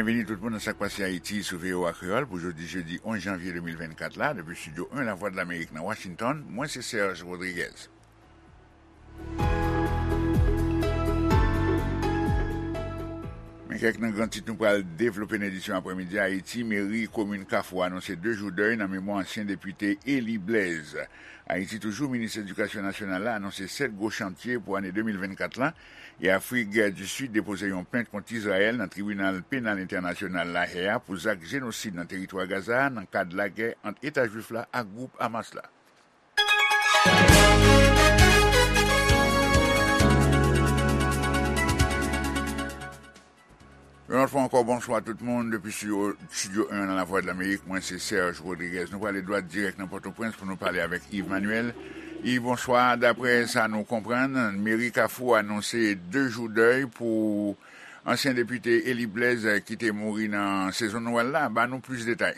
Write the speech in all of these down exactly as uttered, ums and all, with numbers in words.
Byenveni tout moun nan Sa k Pase Ayiti sou V O A Kreyòl pou jodi jedi onz janvye de mil vennkat la, depi estidyo en Lavwadlamerik nan Washington, mwen se Serge Rodriguez. Men kèk nan gran tit nou pral devlope nan edisyon aprèmidi a. Ayiti, meri komin Kafou anonse de jou dèy nan memwa ansyen depite Élie Blaise. Ayiti toujou, minis edikasyon nasyonal la anonse sèt gwo chantye pou ane de mil vennkat la, e Afrik di Sid depoze yon plent kont Izrayèl nan Tribinal Penal Entènasyonal Lahè a pou zak jenosid nan teritwa Gaza a nan kad lagè ant Eta Jwif la ak gwoup Hamas la. Yon lòt fwa ankò, bonswa tout moun. Depi estidyo, estidyo en nan Lavwadlamerik, mwen se Serge Rodriguez. Nou prale dwat dirèk nan Pòtoprens pou nou pale avèk Yves Manuel. Yves, bonswa. Daprè sa nou konprann, meri Kafou anonse de jou dèy pou ansyen depite Élie Blaise ki te mouri nan sezon Nwèl la. Ba nou plis detay.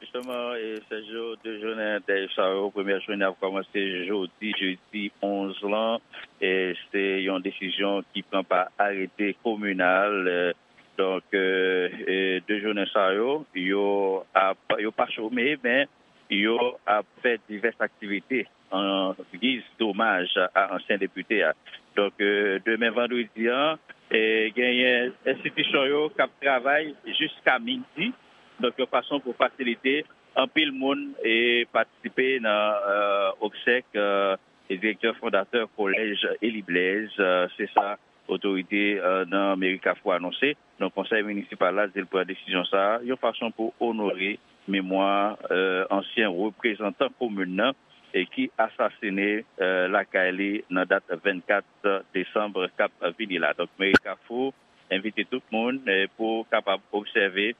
Jisteman, e, Sergio, de jounen dèy sa yo, premyè jounen ap kòmanse jodi, jedi onz lan, e se yon desizyon ki pran pa arete kominal, e, donk, e, e, de jounen sa yo, yo ap, yo pa chome, men yo ap fè divès aktivite an giz domaj a ansyen depite a. Donk, e, demen vandredi an, e, genyen enstitisyon yo k ap travay jiska midi, donk yon fason pou fasilite anpil moun e patisipe nan, e, obsèk, e, direktè fondatè kolèj Élie Blaise, e, se sa otorite, e, nan meri Kafou anonse. Donk, konsèy minisipal la di l pran desizyon sa a yon fason pou onore memwa, e, ansyen reprezantan komin nan e ki asasine, e, lakay li nan dat vennkat desanm k ap vini la. Donk, meri Kafou envite tout moun, e, pou kapab obsève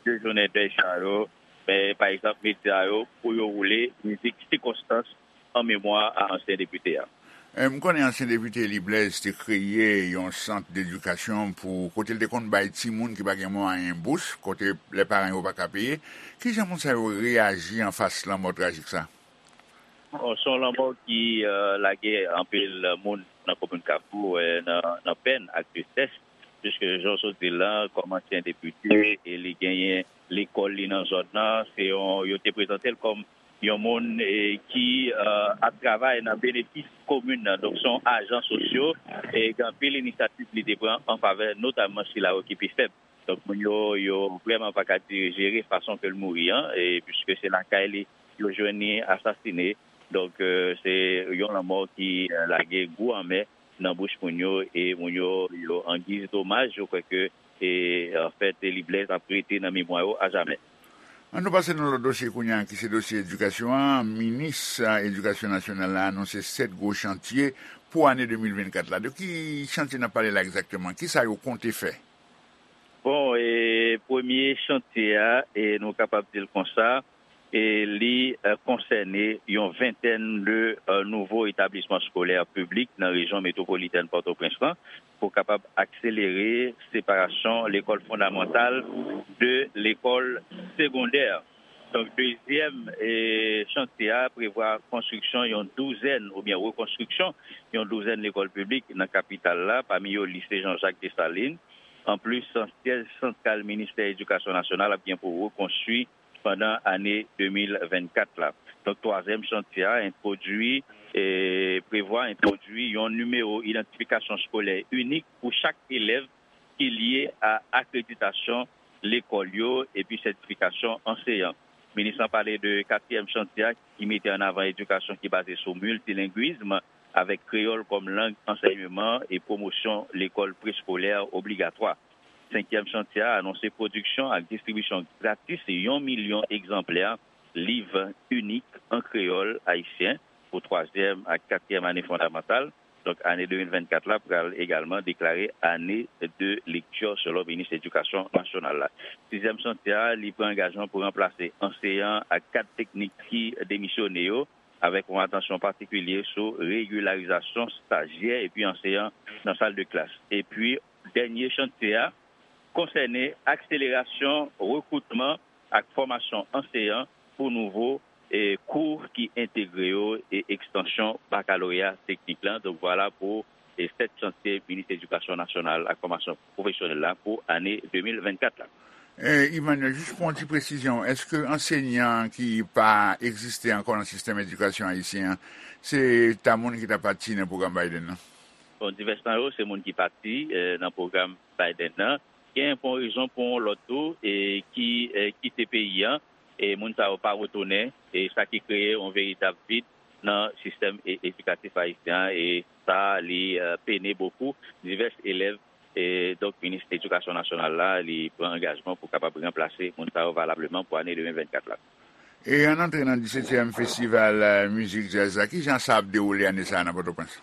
de jounen dèy sa yo, e, pa egzanp, medya yo, pou yo woule mizik sikonstans an memwa a ansyen depite a. E, m konnen ansyen depite Élie Blaise te kreye yon sant dedikasyon pou kote l te konn bay timoun ki pa gen mwayen bous, kote lè paran yo pa ka peye. Kijan moun sa yo reyaji anfas lanmò trajik sa? Bon, se yon lanmò ki, e, lage anpil moun nan komin Kafou, e, nan, nan pèn ak tristès, piske jan w sot di l lan, kòm ansyen depite, e li genyen lekòl li nan zòn nan, se yon, yo te prezante l kòm yon moun, e, ki, e, ap travay nan benefis komin nan. Donk, se yon ajan sosyo, e gen anpil inisyativ li te pran an favè notamman sila yo ki pi fèb. Donk, moun yo, yo vrèman pa ka di-, jere fason ke l mouri an, e piske se lakay li yo jwenn li asasine. Donk, e, se yon lanmò ki, e, lage gou anmè nan bouch moun yo, e moun yo, yo an giz domaj, yo kwè ke, e, anfèt, Élie Blaise ap rete nan memwa yo ajamè. An nou pase nan lòt dosye kounye a, ki se dosye edikasyon an. Minis, e, edikasyon nasyonal la anonse sèt gwo chantye pou ane de mil vennkat la. De ki chantye n ap pale la egzakteman? Kisa yo konte fè? Bon, e, premye chantye a, e, nou kapab di l konsa, e, li, e, konsène yon ventèn de, e, nouvo etablisman eskolè piblik nan rejyon metwopolitèn Pòtoprens lan pou kapab akselere separasyon lekòl fondamantal de lekòl segondè. Donk, dezyèm, e, chantye a prevwa konstriksyon yon douzèn oubyen rekonstriksyon yon douzèn lekòl piblik nan kapital la, pami yo Lise Jean Jacques Dessalines. Anplis, syèj santral Ministè Edikasyon Nasyonal ap gen pou rekonstwi pandan ane de mil vennkat la. Donk, twazyèm chantye a entwodui, e, prevwa entwodui yon nimewo idantifikasyon eskolè inik pou chak elèv ki lye a akreditasyon lekòl yo epi sètifikasyon anseyan. Minis lan pale de katriyèm chantye a ki mete an avan edikasyon ki baze sou miltilengwism, avèk kreyòl kòm lang ansèyman e pwomosyon lekòl preskolè obligatwa. Senkyèm chantye a anonse pwodiksyon ak distribisyon gratis yon milyon egzanplè liv inik an kreyòl ayisyen pou twazyèm ak katriyèm ane fondamantal. Donk, ane de mil vennkat la pral egalman deklare ane de lekti selon minis edikasyon nasyonal la. Sizyèm chantye a, li pran angajman pou ranplase anseyan ak kad teknik ki demisyone yo, avèk yon atansyon patikilye sou regilarizasyon stajyè epi anseyan nan sal de klas. Epi, dènye chantye a konsène akselerasyon rekritman ak fòmasyon anseyan pou nouvo, e, kou ki entegre yo e ekstansyon bakaloreya teknik lan. Donk, vwala pou e sèt chantye Minis Edikasyon Nasyonal ak Fòmasyon Pwofesyonèl la pou ane de mil vennkat la. Eh, Emmanuel, jis pou yon ti presizyon, èske ansèyan ki pa egziste ankò nan sistèm edikasyon ayisyen an, se ta moun ki ta pati nan pwogram Biden nan? Bon, divès nan yo, se moun ki pati eh, nan pwogram Biden nan. Gen pou yon rezon, pou yon lòt tou, e ki eh, kite peyi an, e moun sa yo pa retounen, e sa ki kreye yon veritab vid nan sistèm e- edikatif ayisyen an, e sa, li eh, pene bokou divès elèv. E donk, minis edikasyon nasyonal la, li pran angajman pou kapab ranplase moun sa yo valableman pou ane de mil vennkat la. E ann antre nan disetyèm festival eh, mizik djaz la, kijan sa ap dewoule ane sa a nan Pòtoprens?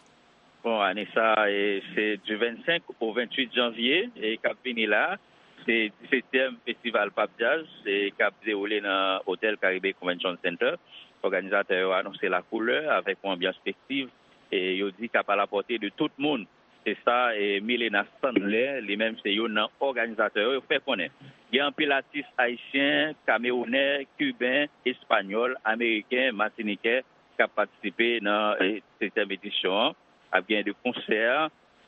Bon, ane sa, e, se du vennsenk au venntuit janvye, e, k ap vini la. Se disetyèm festival Pap Jazz, e, k ap dewoule nan Hotel Caribe Convention Center. Òganizatè yo anonse la koulè avèk yon anbyans festiv, e, yo di k ap à la portée de tout moun. Se sa, e, Milena Sandler, li menm se youn nan òganizatè yo, yo fè konnen. Gen anpil atis ayisyen, kamewounè, kiben, espanyòl, ameriken, matinikè k ap patisipe nan, e, setyèm edisyon an. Ap gen de konsè,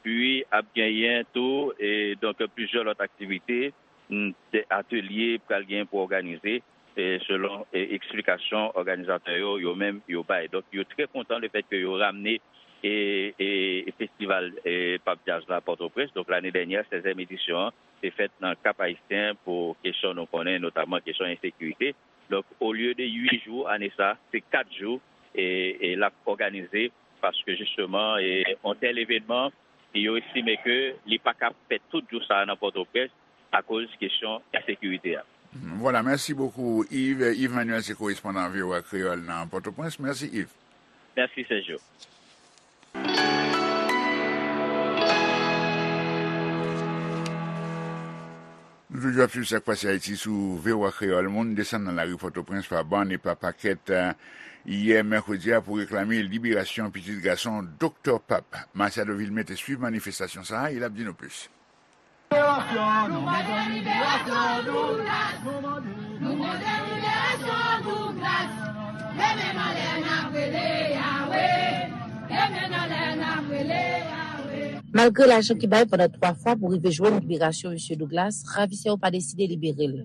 pi ap genyen tou, e, donk, plizyè lòt aktivite, mm, de atelye pral genyen pou òganize, e, selon, e, eksplikasyon òganizatè yo, yo menm, yo bay. Donk, yo trè kontan lefètke yo ramne, e, e, e festival, e, Pap Jazz la Pòtoprens. Donk, lane dènyè, sèzyèm edisyon an, te fèt nan Kap Ayisyen pou kesyon nou konnen, notamman kesyon ensekirite. Donk, olye de uit jou ane sa, se kat jou, e, e l ap òganize, paske jisteman, e, yon tèl evènman, yo estime ke li pa ka fèt tout jou sa a nan Pòtoprens akoz kesyon ensekirite a. Vwala, mèsi bokou, Yves. Yves Manuel se korespondan V O A Kreyòl nan Pòtoprens. Mèsi, Yves. Mèsi, Sergio. Nou toujou ap swiv sa k pase Ayiti sou V O A Kreyòl. Moun desann nan lari Pòtoprens pa bann e pa pakèt, eh, yè mèkredi a pou reklame liberasyon pitit gason Doktè Pap. Matiado Vilmé te swiv manifestasyon sa a e l ap di nou plis. Liberasyon nou bezwen, liberasyon Douglas. Nou mande liberasyon Douglas. Leve n anlè n ap rele Yawe. Leve n anlè n ap rele Yawe. Malgre lajan ki bay pandan twa fwa pou rive jwenn liberasyon Mesye Douglas, ravisè yo pa deside libere l.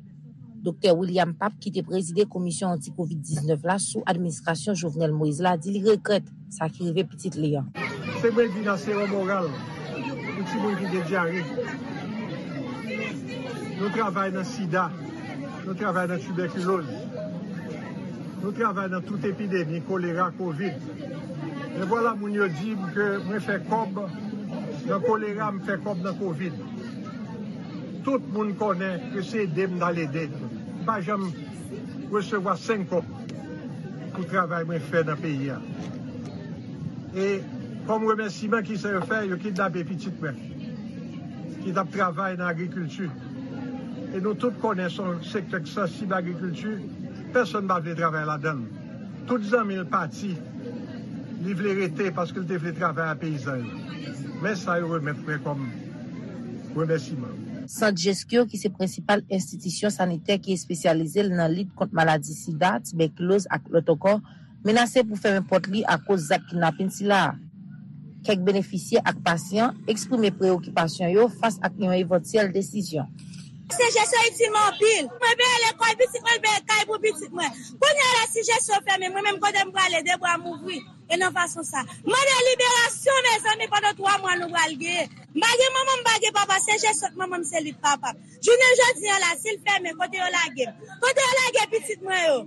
Doktè William Pap, ki te prezide Komisyon Anti-Kovid diznèf la sou administrasyon Jovenel Moïse la, di li regrèt sa ki rive pitit li an. Se mwen di nan sewo moral pou timoun ki gen dyare. Nou travay nan sida, nou travay nan tibèkiloz, nou travay nan tout epidemi, kolera, kovid. Men vwala moun yo di m ke mwen fè kòb nan kolera, m fè kòb nan kovid. Tout moun konnen ke se ede m t al ede. M pa janm resevwa senk kòb pou travay mwen fè nan peyi a. E kòm remèsiman, kisa yo fè? Yo kidnape pitit mwen ki t ap travay nan agrikilti. E nou tout konnen se yon sektè ki sansib, agrikilti, pèsonn pa vle travay ladan l. Tout zanmi l pati, li vle rete paske l te vle travay ak peyizan yo. Men sa yo remèt mwen kòm remèsiman. Sant Jeskyo, ki se prensipal enstitisyon sanitè ki espesyalize l nan lit kont maladi sida, tibèkiloz ak lòt ankò, menase pou fèmen pòt li akoz zak kidnapin sila a. Kèk benefisye ak pasyan eksprime preyokipasyon yo fas ak yon evantyèl desizyon. Se jesyon itil mwen anpil. Mwen peye lekòl pitit mwen, peye kay pou pitit mwen. Kounye a la, si jesyon fèmen, mwen menm kote m prale, de bra m ouvri. E nan fason sa. Mande liberasyon, mezanmi, pandan twa mwa nou pral genyen. M pa gen manman, m pa gen papa, se jesyon manman m, se li k papa m. Jounen jodi a la, si l fèmen, kote yo lage m? Kote yo lage pitit mwen yo?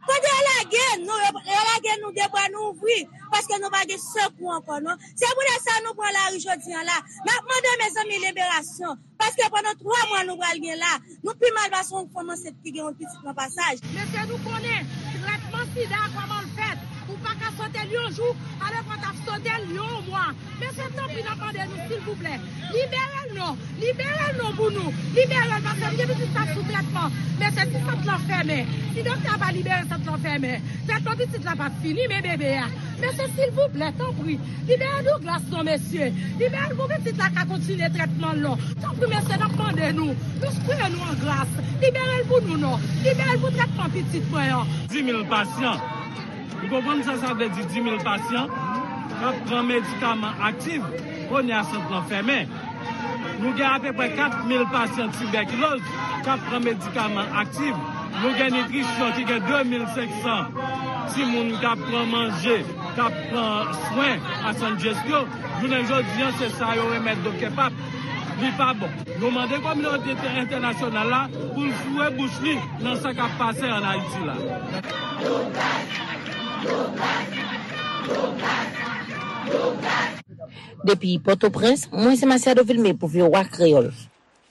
Kote yo lage nou? Yo, yo lage nou de bra nou ouvri, paske nou pa gen sekou ankò, non. Se poutèt sa nou pran lari jodi a la. N ap mande, mezanmi, liberasyon. Paske pandan twa mwa nou pral gen la, nou pi mal pase yon fanm ansent ki gen yon pitit nan pasaj. Mesye, nou konnen trètman sida a kòman l fèt. Ou pa ka sote l yon jou, alòs w t ap sote l yon mwa. Mesye, tanpri, n ap mande nou, silvouplè, libere l non. Libere l non pou nou. Libere l, paske m gen pitit sa sou trètman. Mesye, si sant lan fèmen, si doktè a pa libere sant lan fèmen, trètman pitit la p ap fini, men bebe a. Mesye, silvouplè, tanpri, libere Douglas non, mesye. Libere l pou pitit la ka kontinye trètman l non. Tanpri, mesye, n ap mande nou. Nou preye nou an gras. Libere l pou nou non. Libere l pou trètman pitit mwen an. Di mil pasyan. Ou konprann sa sa vle di, di mil pasyan? k ap pran medikaman aktif, kounye a sant lan fèmen. Nou gen apeprè kat mil pasyan tibèkiloz k ap pran medikaman aktif. Nou gen nitrisyon ki gen de mil senk san timoun k ap pran manje, k ap pran swen a San Jess yo. Jounen jodi a, se sa yo remèt Doktè Pap. Li pa bon. Nou mande kominote entènasyonal la pou l foure bouch li nan sa k ap pase ann Ayiti la. Depi Pòtoprens, mwen se Masiado Vilmé pou V O A Kreyòl.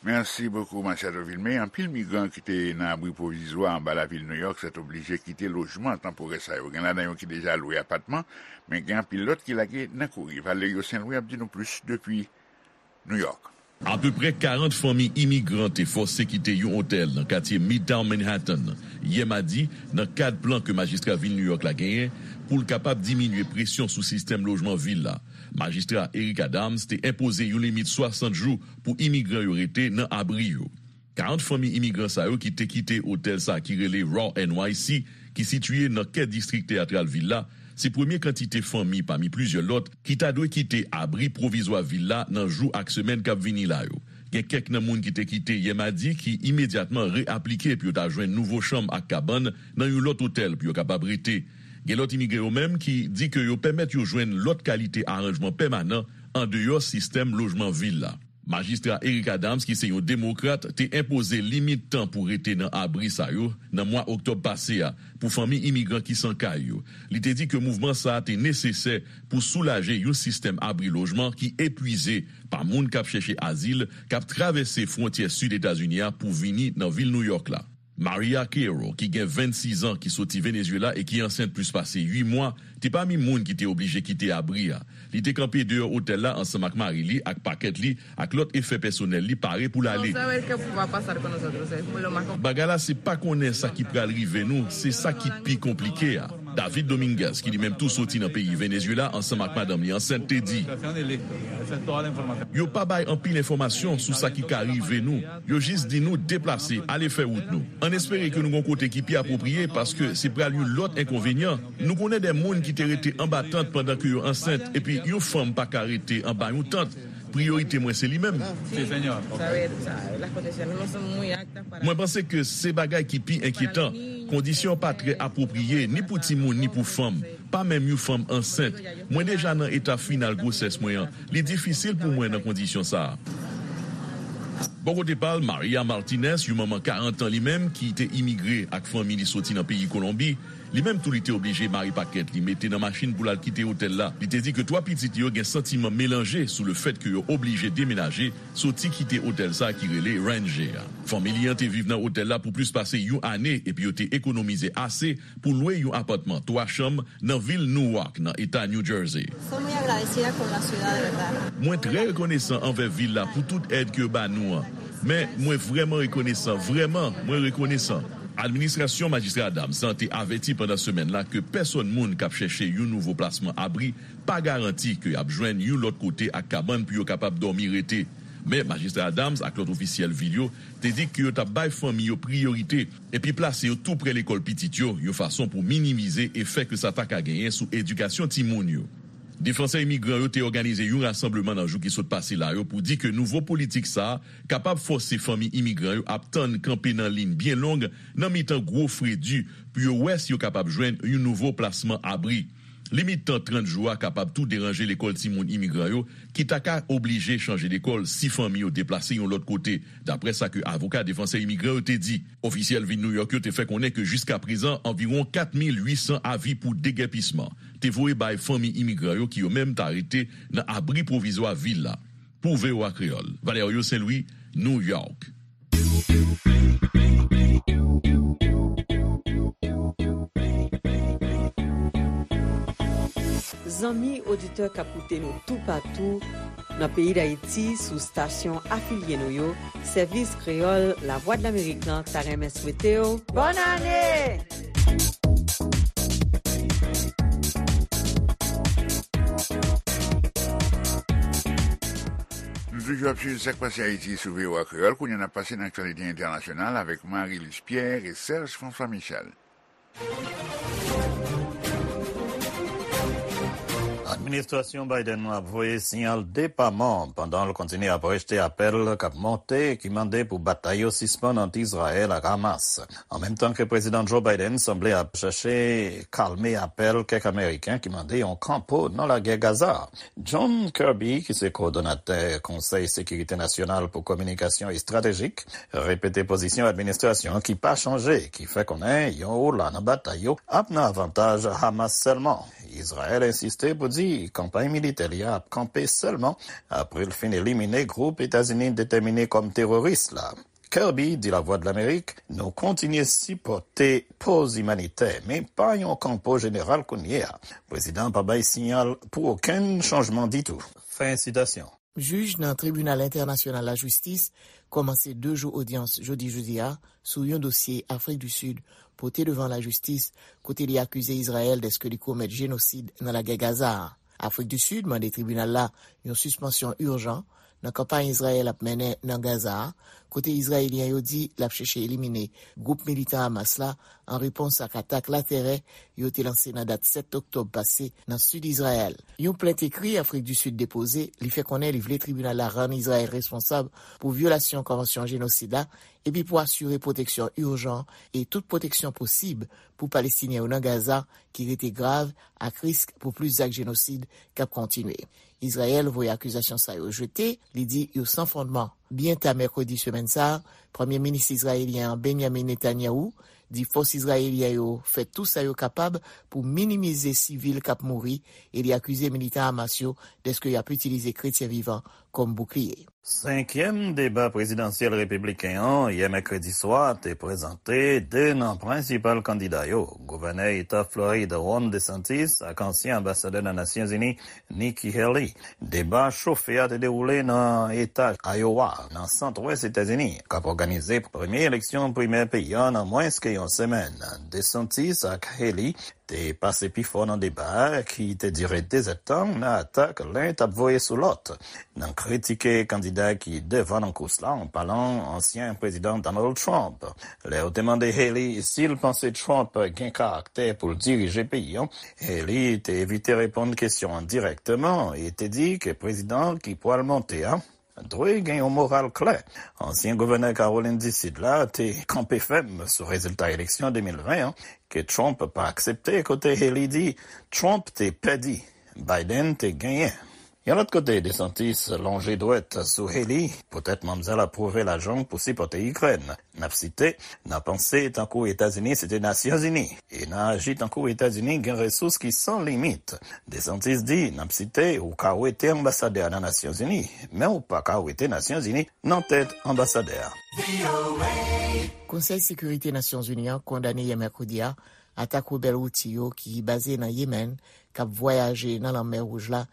Mèsi bokou, Masiado Vilmé. Anpil migran ki te nan abri pwovizwa anba lavil Nouyòk sètoblije kite lojman tanporè sa yo. Gen ladan yo ki deja lwe apatman, men gen anpil lòt ki lage nan kouri. Valerio Saint Louis ap di nou plis depi Nouyòk. Apeprè karant fanmi imigran te fòse kite yon otèl nan katye Midtown Manhattan yè madi, nan kad plan ke majistra vil Nouyòk la genyen pou l kapab diminye presyon sou sistèm lojman vil la. Majistra Eric Adams te enpoze yon limit swasant jou pou imigran yo rete nan abri yo. Karant fanmi imigran sa yo ki te kite otèl sa ki rele Raw N Y C, ki sitiye nan kè distrik teyatral vil la, se premye kantite fanmi pami plizyè lòt ki ta dwe kite abri pwovizwa vil la nan jou ak semèn k ap vini la yo. Gen kèk nan moun ki te kite yè madi ki imedyatman reaplike pou yo ta jwenn nouvo chanm ak kabann nan yon lòt otèl pou yo kapab rete. Gen lòt imigre yo menm ki di ke yo pèmèt yo jwenn lòt kalite aranjman pèmanan andeyò sistèm lojman vil la. Majistra Eric Adams, ki se yon demokrat, te enpoze limit tan pou rete nan abri sa yo nan mwa oktòb pase a pou fanmi imigran ki san kay yo. Li te di ke mouvman sa a te nesesè pou soulaje yon sistèm abri lojman ki epwize pa moun k ap chèche azil k ap travèse fwontyè sid Etazini a pou vini nan vil Nouyòk la. Maria Queiro, ki gen vennsis an, ki soti Venezuela e ki ansent plis pase uit mwa, te pami moun ki te oblije kite abri a. Li te kanpe deyò otèl la ansanm ak mari li ak pakèt li ak lòt efè pèsonèl li pare pou l ale. Bagay la se pa konnen sa ki pral rive nou, se sa ki pi konplike a. David Dominguez, ki li menm tou soti nan peyi Venezuela ansanm ak madanm li ansent, te di, yo pa bay anpil enfòmasyon sou sa ki ka rive nou. Yo jis di nou deplase, ale fè wout nou. Ann espere ke nou gon kote ki pi apwopriye, paske se pral yon lòt enkonvenyan. Nou konnen de moun ki te rete anba tant pandan ke yo ansent, epi yon fanm pa ka rete anba yon tant. Priyorite mwen se li menm. Mwen panse ke se bagay ki pi enkyetan. Kondisyon pa trè apwopriye ni pou timoun ni pou fanm, pa menm yon fanm ansent. Mwen deja nan eta final gwosès mwen an. Li difisil pou mwen nan kondisyon sa a. Bò kote pa l, Maria Martinez, yon manman karant an li menm, ki te imigre ak fanmi li soti nan peyi Kolonbi, li menm tou li te oblije mare pakèt li, mete nan machin pou l al kite otèl la. Li te di ke twa pitit li yo gen santiman melanje sou lefèt ke yo oblije demenaje, soti kite otèl sa ki rele Ranger a. Fanmi li an te viv nan otèl la pou plis pase yon ane epi yo te ekonomize ase pou lwe yon apatman twa chanm nan vil Newark, nan eta New Jersey. Mwen trè rekonesan anvè vil la pou tout èd ke yo ba nou an. Men, mwen vrèman rekonesan, vrèman, mwen rekonesan. Administrasyon Majistra Adams lan te avèti pandan semèn la ke pèsòn moun k ap chèche yon nouvo plasman abri pa garanti ke y ap jwenn yon lòt kote ak kabann pou yo kapab dòmi rete. Men, Majistra Adams ak lòt ofisyèl vil yo te di ke yo t ap bay fanmi yo priyorite epi plase yo tou prè lekòl pitit yo, yon fason pou minimize efè ke sa ta ka genyen sou edikasyon timoun yo. Defansè imigran yo te òganize yon rasanbleman nan jou ki sot pase la yo pou di ke nouvo politik sa a kapab fòse fanmi imigran yo ap tann kanpe nan liy byen long nan mitan gwo fredi pou yo wè si yo kapab jwenn yon nouvo plasman abri. Limit tan trant jou a kapab tou deranje lekòl timoun imigran yo, ki ta ka oblije chanje lekòl si fanmi yo deplase yon lòt kote, daprè sa ke avoka defansè imigran yo te di. Ofisyèl vil Nouyòk yo te fè konnen ke jiskaprezan anviwon kat mil uit san avi pou degèpisman te voye bay fanmi imigran yo ki yo menm ta rete nan abri pwovizwa vil la. Pou V O A Kreyòl, Valerio Saint Louis, New York. Zanmi oditè k ap koute nou toupatou nan peyi Dayiti sou stasyon afilye nou yo, Sèvis Kreyòl Lavwadlamerik lan ta renmen swete w bòn ane! Nou toujou ap swiv sa k pase Ayiti sou V O A Kreyòl. Kounye a n ap pase nan aktyalite entènasyonal avèk Marie Luce Pierre e Serge François Michel. Administrasyon Biden nan ap voye siyal depaman pandan l kontinye ap rejte apèl k ap monte ki mande pou batay yo sispann ant Izrayèl ak Hamas. An menm tan ke Prezidan Joe Biden sanble ap chache kalme apèl kèk Ameriken ki mande yon kanpo nan lagè Gaza. John Kirby, ki se kowòdonatè Konsèy Sekirite Nasyonal pou Kominikasyon Estratejik, repete pozisyon administrasyon ki pa chanje, ki fè konnen yon ola nan batay yo ap nan avantaj Hamas sèlman. Izrayèl ensiste pou di kanpay militè li a ap kanpe sèlman apre l fin elimine gwoup Etazini detèmine kòm teworis la. Kirby di Lavwadlamerik, nou kontinye sipòte poz imanitè, men pa yon kanpo jeneral kounye a. Prezidan an pa bay siyal pou okenn chanjman ditou. Fen sitasyon. Jij nan Tribinal Entènasyonal Lajistis kòmanse de jou odyans jodi jodi a sou yon dosye Afrik di Sid pote devan lajistis, kote li akize Izrayèl dèske li komèt jenosid nan lagè Gaza a. Afrik di Sid mande tribinal la yon sispansyon ijan nan kanpay Izrayèl ap mennen nan Gaza a, kote Izrayelyen yo di l ap chèche elimine gwoup militan Hamas la an repons ak atak latèrè yo te lanse nan dat sèt oktòb pase nan sid Izrayèl. Yon plent ekri Afrik di Sid depoze, li fè konnen li vle tribinal la rann Izrayèl responsab pou vyolasyon konvansyon jenosid la, epi pou asire pwoteksyon ijan e tout pwoteksyon posib pou Palestinyen yo nan Gaza, ki rete grav, ak risk pou plis zak jenosid k ap kontinye. Izrayèl voye akizasyon sa yo jete, li di yo san fondman. Byen ta mèkredi semèn sa a, Premye Minis izrayelyen an, Benjamin Netanyahu, di fòs izrayelyen yo fè tou sa yo kapab pou minimize sivil k ap mouri, e li akize militan Hamas yo dèske y ap itilize kretyen vivan kòm boukliye. Senkyèm deba prezidansyèl repibliken an, yè mèkredi swa, te prezante de nan prensipal kandida yo, gouvènè eta Florid Ron DeSantis ak ansyen anbasadè nan Nasyonzini, Nikki Haley. Deba chofe a te dewoule nan eta Iowa, nan sant wès Etazini, k ap òganize premye eleksyon primè peyi a nan mwens ke yon semèn. DeSantis ak Haley te pase pi fò nan deba a, ki te dire dezèdtan, nan atak len t ap voye sou lòt, nan kritike kandida ki devan nan kous la, an palan ansyen prezidan Donald Trump. Lè yo te mande Haley si l panse Trump gen karaktè pou l dirije peyi an, Haley te evite reponn kesyon an dirèkteman e te di ke prezidan ki pral monte a dwe gen yon moral klè. Ansyen gouvènè Kawolin di Sid la te kanpe fèm sou rezilta eleksyon de mil ven an ke Trump pa aksepte, kote Haley di Trump te pèdi, Biden te genyen. Yon lòt kote, DeSantis lonje dwèt sou Haley, poutèt manmzèl ap pwouve lajan pou sipòte Ikrèn. N ap site, n a panse tankou Etazini se te Nasyonzini, e n a aji tankou Etazini gen resous ki san limit. DeSantis di, n ap site, ou ka wete anbasadè a nan Nasyonzini, men ou pa ka wete Nasyonzini nan tèt anbasadè a. Konsèy Sekirite Nasyonzini an kondane yè mèkredi a atak rebèl Houthi yo ki baze nan Yemen k ap vwayaje nan Lanmè Wouj la,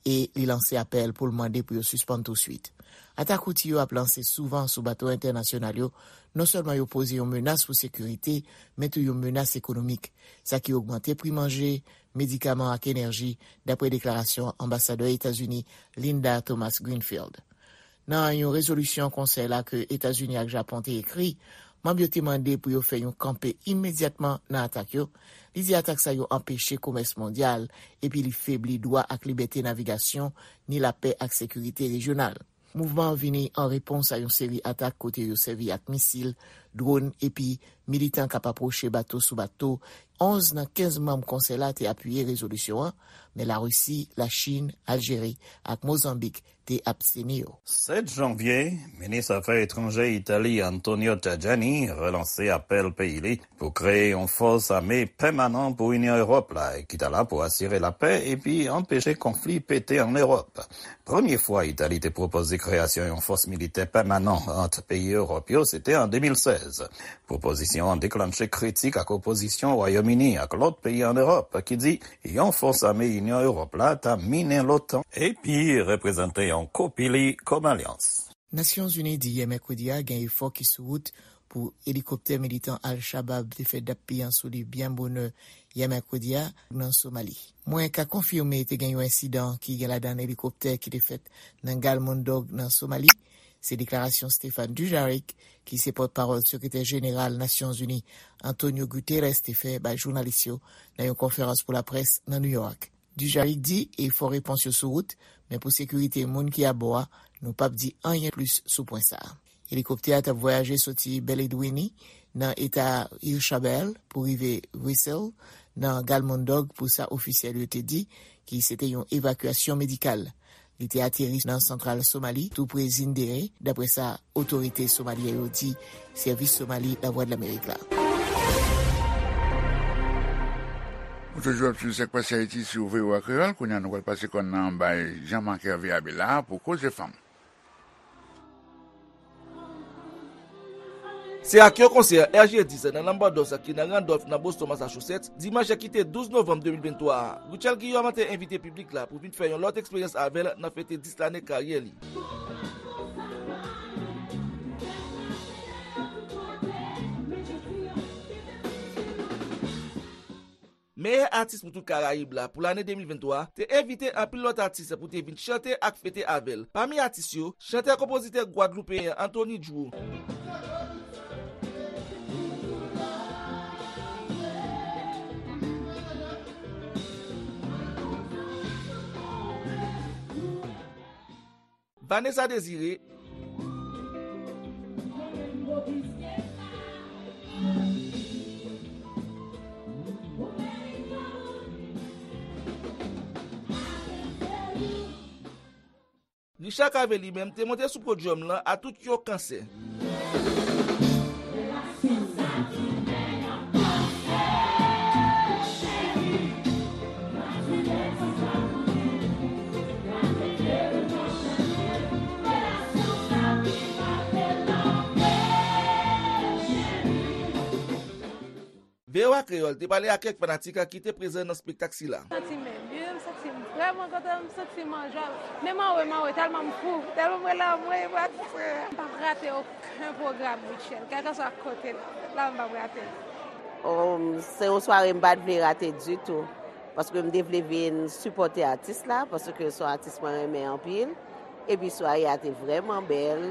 e li lanse apèl pou l mande pou yo sispann touswit. Atak Houthi yo ap lanse souvan sou bato entènasyonal yo, non sèlman yo poze yon menas pou sekirite, men tou yon menas ekonomik, sa ki ogmante pri manje, medikaman ak enèji, dapre deklarasyon anbasadè Etazini Linda Thomas-Greenfield. Nan yon rezolisyon konsèy la ke Etazini ak Japon te ekri, manm yo te mande pou yo fè yon kanpe imedyatman nan atak yo. Li di atak sa yo anpeche komès mondyal, epi li febli dwa ak libète navigasyon, ni lapè ak sekirite rejyonal. Mouvman an vini an repons a yon seri atak kote yo sèvi ak misil, dwòn, epi militan k ap apwoche bato sou bato. Onz nan kenz manm konsèy la te apiye rezolisyon an, men Larisi, Lachin, Aljeri ak Mozanbik te absteni yo. Sèt janvye, minis afè etranjè Itali Antonio Tajani relanse apèl peyi li pou kreye yon fòs ame pèmanan pou Inyon Ewòp la, ki ta la pou asire lapè epi anpeche konfli pete ann Ewòp. Premye fwa Itali te pwopoze kreyasyon yon fòs militè pèmanan ant peyi Ewòp yo, se te an de mil sèz. Pwopozisyon an deklanche kritik ak opozisyon Wayòm Ini ak lòt peyi ann Ewòp ki di yon fòs ame Inyon Ewòp la ta minen l'OTAN epi reprezante yon kopi li kòm alyans. Nasyonzini di yè mèkredi a gen efò ki sou wout pou elikoptè militan Al-Shabaab te fè dap pye an sou li byen bonè yè mèkredi a nan Somali. Mwen ka konfime te gen yon ensidan ki gen ladan elikoptè ki te fèt nan Galmudug nan Somali. Se deklarasyon Stéphane Dujarric, ki se pòtpawòl sekretè jeneral Nasyonzini Antonio Guterres, te fè bay jounalis yo nan yon konferans pou laprès nan New York. Dujaric di efò repons yo sou wout, men pou sekirite moun ki abò a, nou p ap di anyen plis sou pwen sa a. Elikoptè a t ap vwayaje soti Belle Edwini, nan eta Ilchabelle, pou rive Wesel, nan Galmudug, pou sa ofisyèl yo te di ki se te yon evakyasyon medikal. Li te ateri nan santral Somali, tou pre Zindere, dapre sa otorite somalyen yo di sèvis Somali Lavwadlamerik la. Ou toujou ap swiv Sak Pase Ayiti sou V O A Kreyòl. Kounye a, nou pral pase kòn nan bay Jean Marc Hervé Abela pou Koze Fanm. Se ak yon konsè R G dis nan Lambadous ki nan Randolph, nan Boston, Massachusetts, dimanch ki te douz novanm de mil venntwa a. Rutshelle Guillaume te envite piblik la pou vin fè yon lòt eksperyans avè l nan fete dis lane karyè li. Meyè atis pou tout Karayib la pou lane de mil venntwa te envite anpil lòt atis pou te vin chante ak fete avè l. Pami atis yo, chantè-konpozitè gwadloupeyen Anthony Drew, Vanessa Désiré, Richard Cavé li menm te monte sou podyòm lan a tout yon kansè. V O A Kreyòl te pale ak kèk fanatik ki te prezan nan espektak sila. M santi m byen, m santi m vrèman kontan, m santi m an jwa. Menm anwe, m anwe tèlman m fou, tèlman m rele anwe pou atis mwen. M p ap rate okenn pwogram Rutshelle, kèlkeswa kote l ap fèt la, m p ap rate l. Oh, se yon sware m pa t vle rate ditou, paske m te vle vin sipòte atis la, paske se yon atis mwen renmen anpil. Epi sware a te vrèman bèl.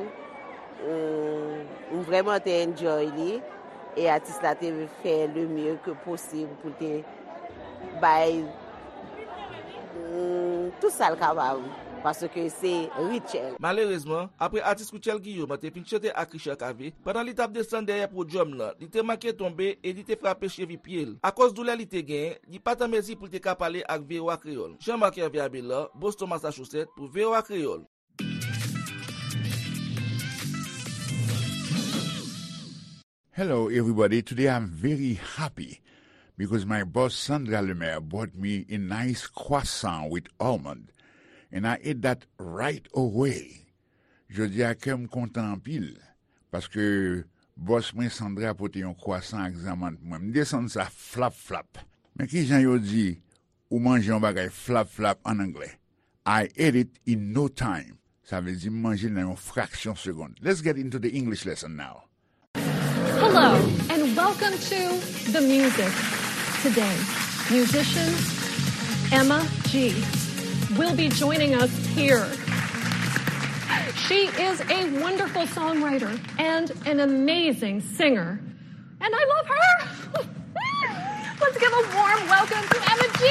M, m vrèman te enjoy li. E atis la te fè le mieux que possible pou l te bay, mm, tout sa l kapab. Paske se Rutshelle. Malerezman, apre atis Rutshelle Guillaume te fin chante ak Richard Cavé, pandan li t ap desann dèyè podyòm lan, li te manke tonbe e li te frape chevi pye l. Akoz doulè li te genyen, li pa t an mezi pou l te ka pale ak V O A Kreyòl. Jean Marc Hervé Abélard, Boston, Massachusetts, pou V O A Kreyòl. Hello, everybody. Today I'm very happy because my boss Sandra Lemaire bought me a nice croissant with almond, and I ate that right away. Jodi a kè m kontan anpil, paske bòs mwen Sandra pote yon kwasan ak zanmann pou mwen. M desann sa flap flap. Men kijan yo di, ou manje yon bagay flap flap an anglè? I ate it in no time. Sa vle di m manje l nan yon fraksyon segonn. Let's get into the English lesson now. Hello, and welcome to The Music Today. Musician Emma G will be joining us here. She is a wonderful songwriter and an amazing singer. And I love her. Let's give a warm welcome to Emma G.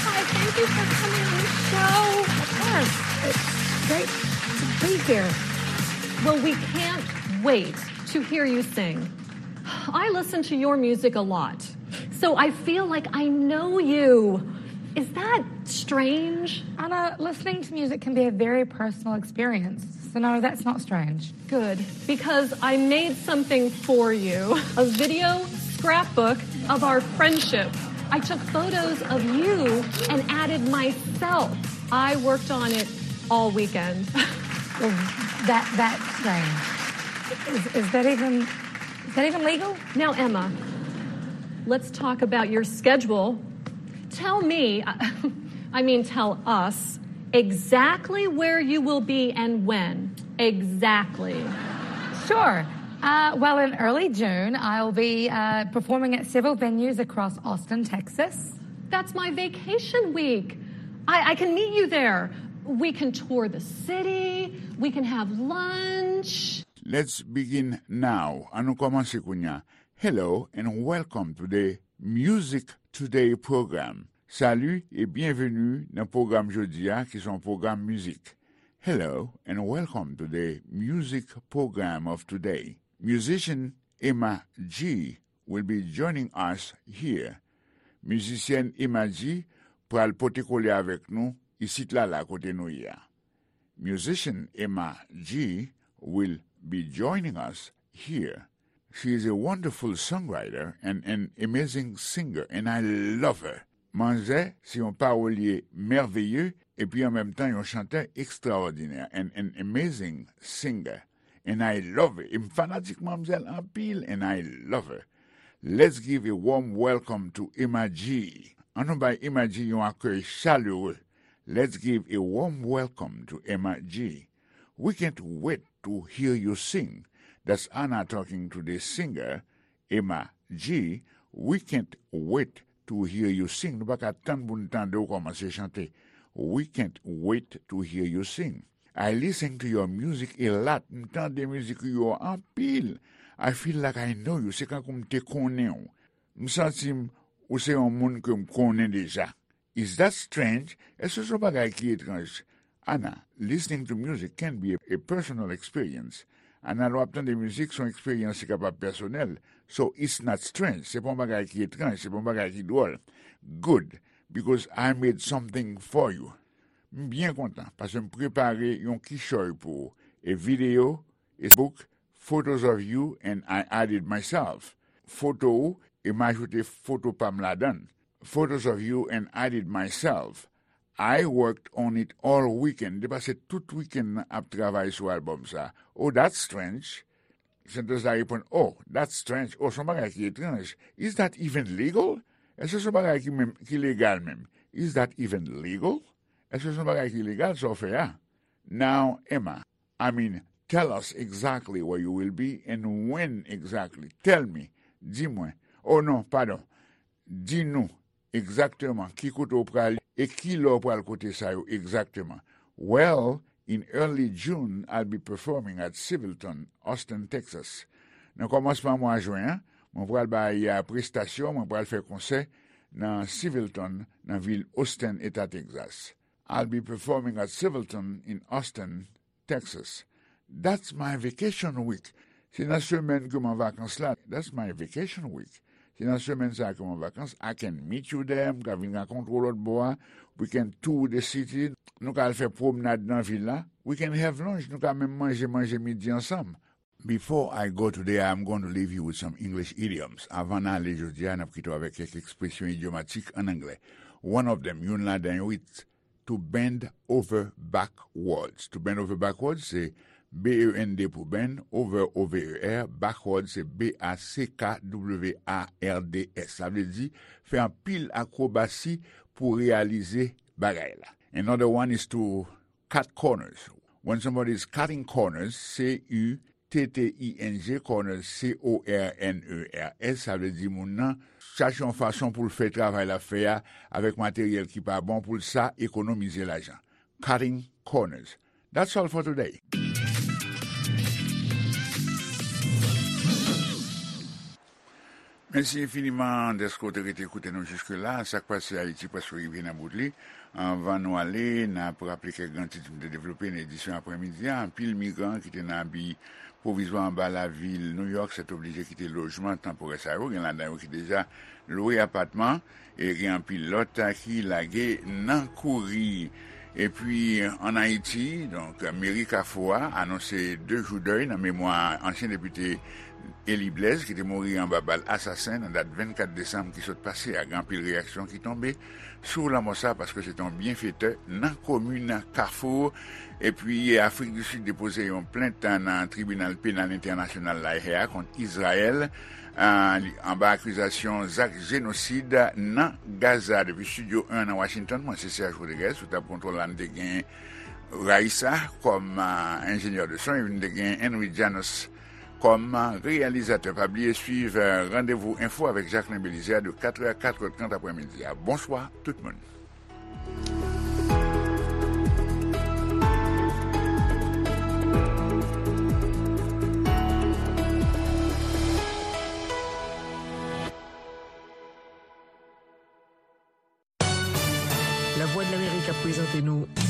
Hi, thank you for coming on the show. Of course. It's great. It's a pleasure. Well, we can't wait to hear you sing. I listen to your music a lot, so I feel like I know you. Is that strange? Anna, listening to music can be a very personal experience, so no, that's not strange. Good, because I made something for you, a video scrapbook of our friendship. I took photos of you and added myself. I worked on it all weekend. Well, that, that's strange. Is, is that even, is that even legal? Now, Emma, let's talk about your schedule. Tell me, I mean, tell us exactly where you will be and when. Exactly. Sure. Uh, well, in early June, I'll be, uh, performing at several venues across Austin, Texas. That's my vacation week. I, I can meet you there. We can tour the city. We can have lunch. Let's begin now. An nou kòmanse kounye a. Hello and welcome to the Music Today program. Salut et bienvenue nan pwogram jodi a ki se yon pwogram mizik. Hello and welcome to the music program of today. Musician Emma G will be joining us here. Mizisyèn Emma G pral pote kole avèk nou isit la la kote nou ye a. Musician Emma G will be joining us here. She is a wonderful songwriter and an amazing singer, and I love her. Manzè se yon pawolye mèveye epi an menm tan yon chantè ekstraòdinè, and an amazing singer. And I love her. E m fanatik manmzèl anpil, and I love her. Let's give a warm welcome to Emma G. An nou bay Emma G yon akèy chalere. Let's give a warm welcome to Emma G. We can't wait to hear you sing. That's Anna talking to the singer, Emma G. We can't wait to hear you sing. Nou pa ka tann pou n tande w kòmanse chante. We can't wait to hear you sing. I listen to your music a lot. M tande mizik ou yo anpil. I feel like I know you. Se kankou m te konnen w. M santi m ou se yon moun ke m konnen deja. Is that strange? Èske se yon bagay ki etranj? Anna, listening to music can be a, a personal experience. Anna, lè w ap tande mizik, se yon eksperyans ki kapab pèsonèl. So, it's not strange. Se pa yon bagay ki etranj, se pa yon bagay ki dwòl. Good, because I made something for you. M byen kontan, paske m prepare yon kichòy pou ou. A video, a book, photos of you and I added myself. Foto ou, e m ajoute foto pa m ladan l. Photos of you and added myself. I worked on it all weekend. Te pase tout wikenn nan ap travay sou albòm sa. Oh, that's strange. Sentans la reponn, oh, that's strange. Oh, se yon bagay ki etranj. Is that even legal? Èske se yon bagay ki menm, ki legal menm? Is that even legal? Èske se yon bagay ki legal sa w fè a? Now, Emma, I mean, tell us exactly where you will be and when exactly. Tell me. Di mwen. Oh non, padon. Di nou egzakteman ki kote w prale e ki lè w pral kote sa yo egzakteman. Well, in early June, I'll be performing at Civilton, Austin, Texas. Nan kòmansman mwa jen an, mwen pral bay prestasyon, mwen pral fè konsè nan Civilton, nan vil Austin, eta Texas. I'll be performing at Civilton in Austin, Texas. That's my vacation week. Se nan semèn ke m an vakans la. That's my vacation week. Se nan semèn sa ke m an vakans. I can meet you there. M ka vin rankontre w lòt bò a. We can tour the city. Nou ka al fè pwomnad nan vil la. We can have lunch. Nou ka menm manje, manje midi ansanm. Before I go today, I'm going to leave you with some English idioms. Avan n ale jodi a, n ap kite w avèk kèk ekspresyon idyomatik ann anglè. One of them, youn ladan yo, it's to bend over backwards. To bend over backwards, se B E N D pou bend, over, O V E R, backwards, se B A C K W A R D S. Sa vle di, fè anpil akwobasi pou reyalize bagay la. Another one is to cut corners. When somebody is cutting corners, C U T T I N G, corners, C O R N E R S, sa vle di moun nan chache yon fason pou l fè travay l ap fè a avèk materyèl ki pa bon pou l sa ekonomize lajan. Cutting corners. That's all for today. Mèsi enfiniman dèske w te rete koute nou jiske la. Sa k pase Ayiti prèske rive nan bout li. Anvan nou ale, n ap raple kèk gran tit m te devlope nan edisyon aprèmidi a. Anpil migran ki te nan abi pwovizwa anba lavil New York sètoblije kite lojman tanporè sa yo. Gen ladan yo ki deja lwe apatman e gen anpil lòt ki lage nan kouri. Epi, ann Ayiti, donk, meri Kafou a anonse de jou dèy nan memwa ansyen depite Élie Blaise, ki te mouri anba bal asasen nan dat vennkat desanm ki sot pase a. Gen anpil reyaksyon ki tonbe sou lanmò sa, paske se te yon byenfetè nan komin Kafou. Epi, Afrik di Sid depoze yon plent nan Tribinal Penal Entènasyonal La Haye a kont Izrayèl, a, li, anba akizasyon zak jenosid nan Gaza. Depi Estidyo en nan Washington, mwen se Serge Rodriguez, sou tab kontwòl la, n te gen Raissa kòm, a, enjenyè de son, epi n te gen Henry Janos kòm, a, reyalizatè. Pa bliye swiv, a, Randevou Enfo avèk Jacquelin Belizaire de katrè a katrè trant aprèmidi a. Bonswa tout moun.